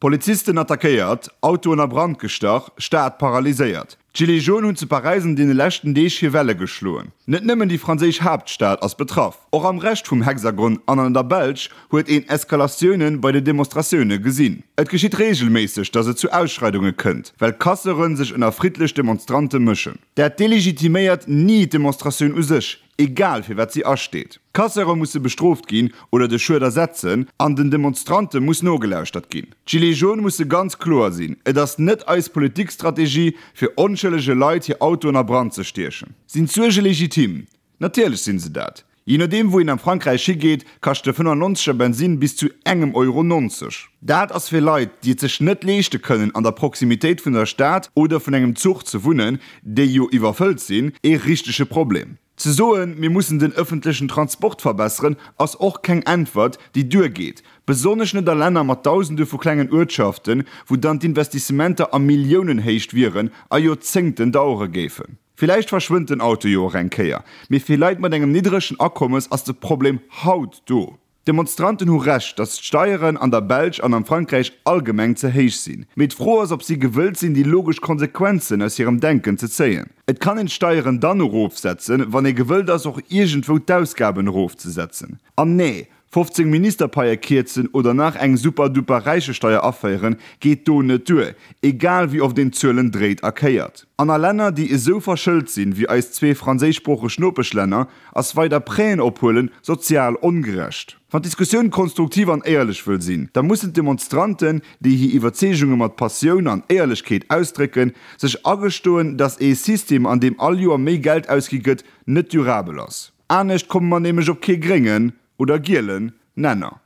Polizisten attackéiert, Autoen a Brand gestach, Stad paralyséiert. D'Gilets jaunes hunn zu Paräis an deene leschten Deeg hir Welle geschloen. Net nëmmen déi franséisch Haaptstad ass betraff, och am Rescht vum Hexagon an an der Belsch huet een Eskalatioune bei de Demonstratioune gesinn. Et geschitt reegelméisseg, datt et zu Ausschreidunge kënnt, well Casseure sech ënner friddlech Demonstrante mëschen. Dat delegitiméiert ni d'Demonstratioun u sech, egal fir wat si asteet. D'Casseure musse bestrooft ginn oder de Schued ersetzen an den Demonstrante muss nogelauschtert ginn. D'Gilets jaunes musse ganz kloer sinn, et ass net eis Politikstrategie fir onschëllege Leit hir Autoen a Brand ze stiechen. Sinn d'Suerge legitim? Natierlech sinn se dat. Jee nodeem wou een am Frankräich higeet, kascht de 95 er Bensinn bis zu engem Euro 90. Dat ass fir Leit, déi et sech net leeschte kënnen an der Proximitéit vun der Stad oder vun engem Zuch ze wunnen, déi jo iwwerfëllt sinn, ee richtege Problem. Ze soen, mir mussen den ëffentlechen Transport verbesseren, ass och keng Äntwert, déi duergeet, besonnesch net a Länner mat Dausende vu klengen Uertschaften, wou dann d'Investissementer a Milliounenhéicht wieren a Joerzéngten dauere géifen. Villäicht verschwënnt den Auto jo och eng Kéier, mee fir Leit mat engem niddregen Akommes ass de Problem haut do. D'Demonstranten hu Recht, datt d'Steieren an der Belsch an am Frankräich allgemeng ze héich sinn. Mee d'Fro ass, ob si gewëllt sinn, déi logesch Konsequenzen aus hirem Denken ze zéien. Et kann een d'Steieren dann erofsetzen, wann ee gewëllt ass, och iergendwou d'Ausgaben erofzesetzen. An nee, 15 Ministerpaie kierzen oder nach eng super-duper Räichesteier aféieren, geet do net duer, egal wéi oft een d'Zuelen dréit a kéiert. An a Länner, déi esou verschëlt sinn, wéi eis zwee franséischsproocheg Nopeschlänner, ass weider Prêten ophuelen sozial ongerecht. Wann d'Diskussioun konstruktiv an éierlech wëll sinn, da mussen d'Demonstranten, déi hir Iwwerzeegunge mat Passioun an Éierlechkeet ausdrécken, sech agestoen, datt ee System, an deem all Joer méi Geld ausgi gëtt, net durabel ass. Anescht komme mer nämlech op kee gréngen, oder gielen, Nenner.